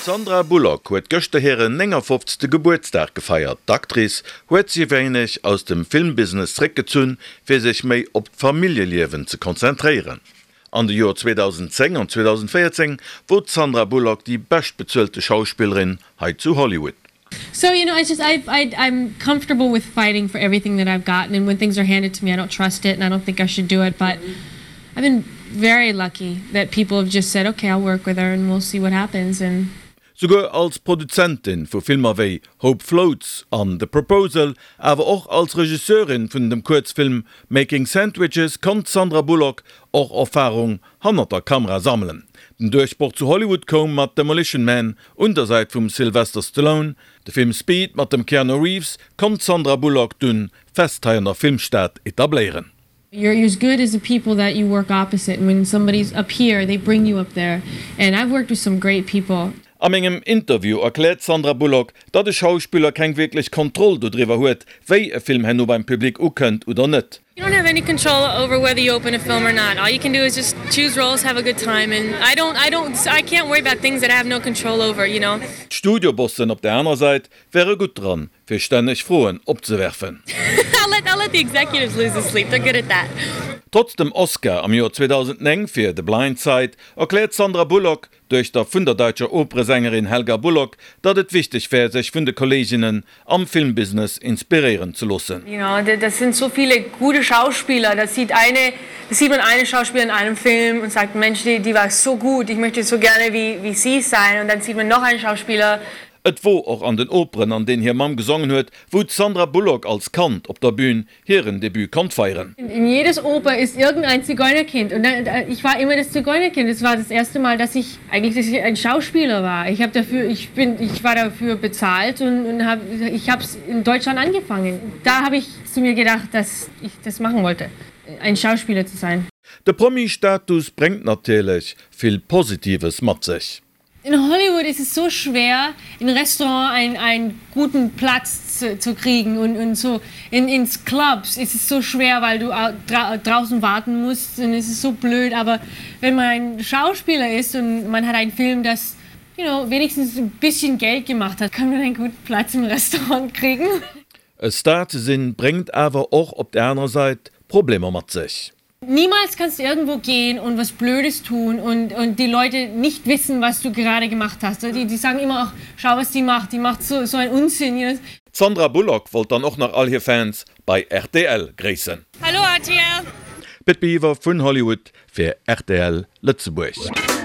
D'Sandra Bullock huet gëschter hiren 59. Gebuertsdag gefeiert. D'Actrice huet sech e wéineg aus dem Filmbusiness zréckgezunn, fir sech méi op d'Familljeliewen ze konzentréieren. An de Joer 2010 an 2014 wor d'Sandra Bullock déi beschtbezuelte Schauspillerin hei zu Hollywood. So you know, it's just I, I, I'm comfortable with fighting for everything that I've gotten and when things are handed to me, I don't trust it and I don't think I should do it, but I've been very lucky that people have just said, okay, I'll work with her and we'll see what happens and. Souguer als Produzentin vu Filmer wéi Hope Floats an The Proposal, awer och als Regisseurin vun dem Kuerzfilm Making Sandwiches konnt d'Sandra Bullock och Erfarung hannert der Kamera sammelen. Den Duerchbroch zu Hollywood koum mat Demolition Man un der Säit vum Sylvester Stallone. De Film Speed mat dem Keanu Reeves konnt d'Sandra Bullock dunn fest hei an der Filmstad etabléieren. You're as good as the people that you work opposite and when somebody's up here they bring you up there and I've worked with some great people. A mengem Interview erkläert d'Sandra Bullock, datt e Schauspiller keng wierklech Kontroll dodriwwer huet, wéi e Film herno beim Public ukënnt oder net. You don't have any control over whether you open a film or not. All you can do is just choose roles, have a good time and I don't I don't I can't worry about things that I have no control over, you know. D'Studiobossen op der anerer Säit wäre gutt dran, fir stänneg Froen opzewerfen. I'll let I'll let the executives lose the sleep, they're good at that. Trotz dem Oscar am Joer 2009 fir The Blind Side erkläert d'Sandra Bullock, Duechter vun der deutscher Operesängerin Helga Bullock, datt et wichteg wär, sech vun de Kolleeginnen am Filmbusiness inspiréieren ze loossen. You know, das sind so viele gute Schauspieler, da sieht eine, da sieht man eine Schauspielerin in einem Film und sagt, Mensch, die, die war so gut, ich möchte so gerne wie, wie sie sein und dann sieht man noch einen Schauspieler. Et wor och an den Operen, an deenen hir Mamm gesongen huet, wou d'Sandra Bullock als Kand op der Bühn hiren Debut konnt feieren. In jedes Oper ist irgendein Zigeunerkind und ich war immer das Zigeunerkind. Es war das erste Mal, dass ich eigentlich dass ich ein Schauspieler war. Ich habe dafür ich bin ich war dafür bezahlt und, und hab, ich habe es in Deutschland angefangen. Da habe ich zu mir gedacht, dass ich das machen wollte, ein Schauspieler zu sein. De Promi-Status bréngt natierlech vill Positives mat sech. In Hollywood ist es so schwer, in Restaurant ein, einen guten Platz zu, zu kriegen und, und so in, ins Clubs ist es so schwer, weil du dra draußen warten musst und es ist so blöd. Aber wenn man ein Schauspieler ist und man hat einen Film, das you know, wenigstens ein bisschen Geld gemacht hat, kann man einen guten Platz im Restaurant kriegen. E Star ze sinn, bréngt awer och op der anerer Säit Problemer mat sech. Niemals kannst du irgendwo gehen und was Blödes tun und, und die Leute nicht wissen, was du gerade gemacht hast. Die, die sagen immer auch, schau was die macht, die macht so, so einen Unsinn. D'Sandra Bullock wollt dann och nach all hir Fans bei rtl gréissen. Hallo rtl! Pit Biwer vun Hollywood fir rtl Lëtzebuerg.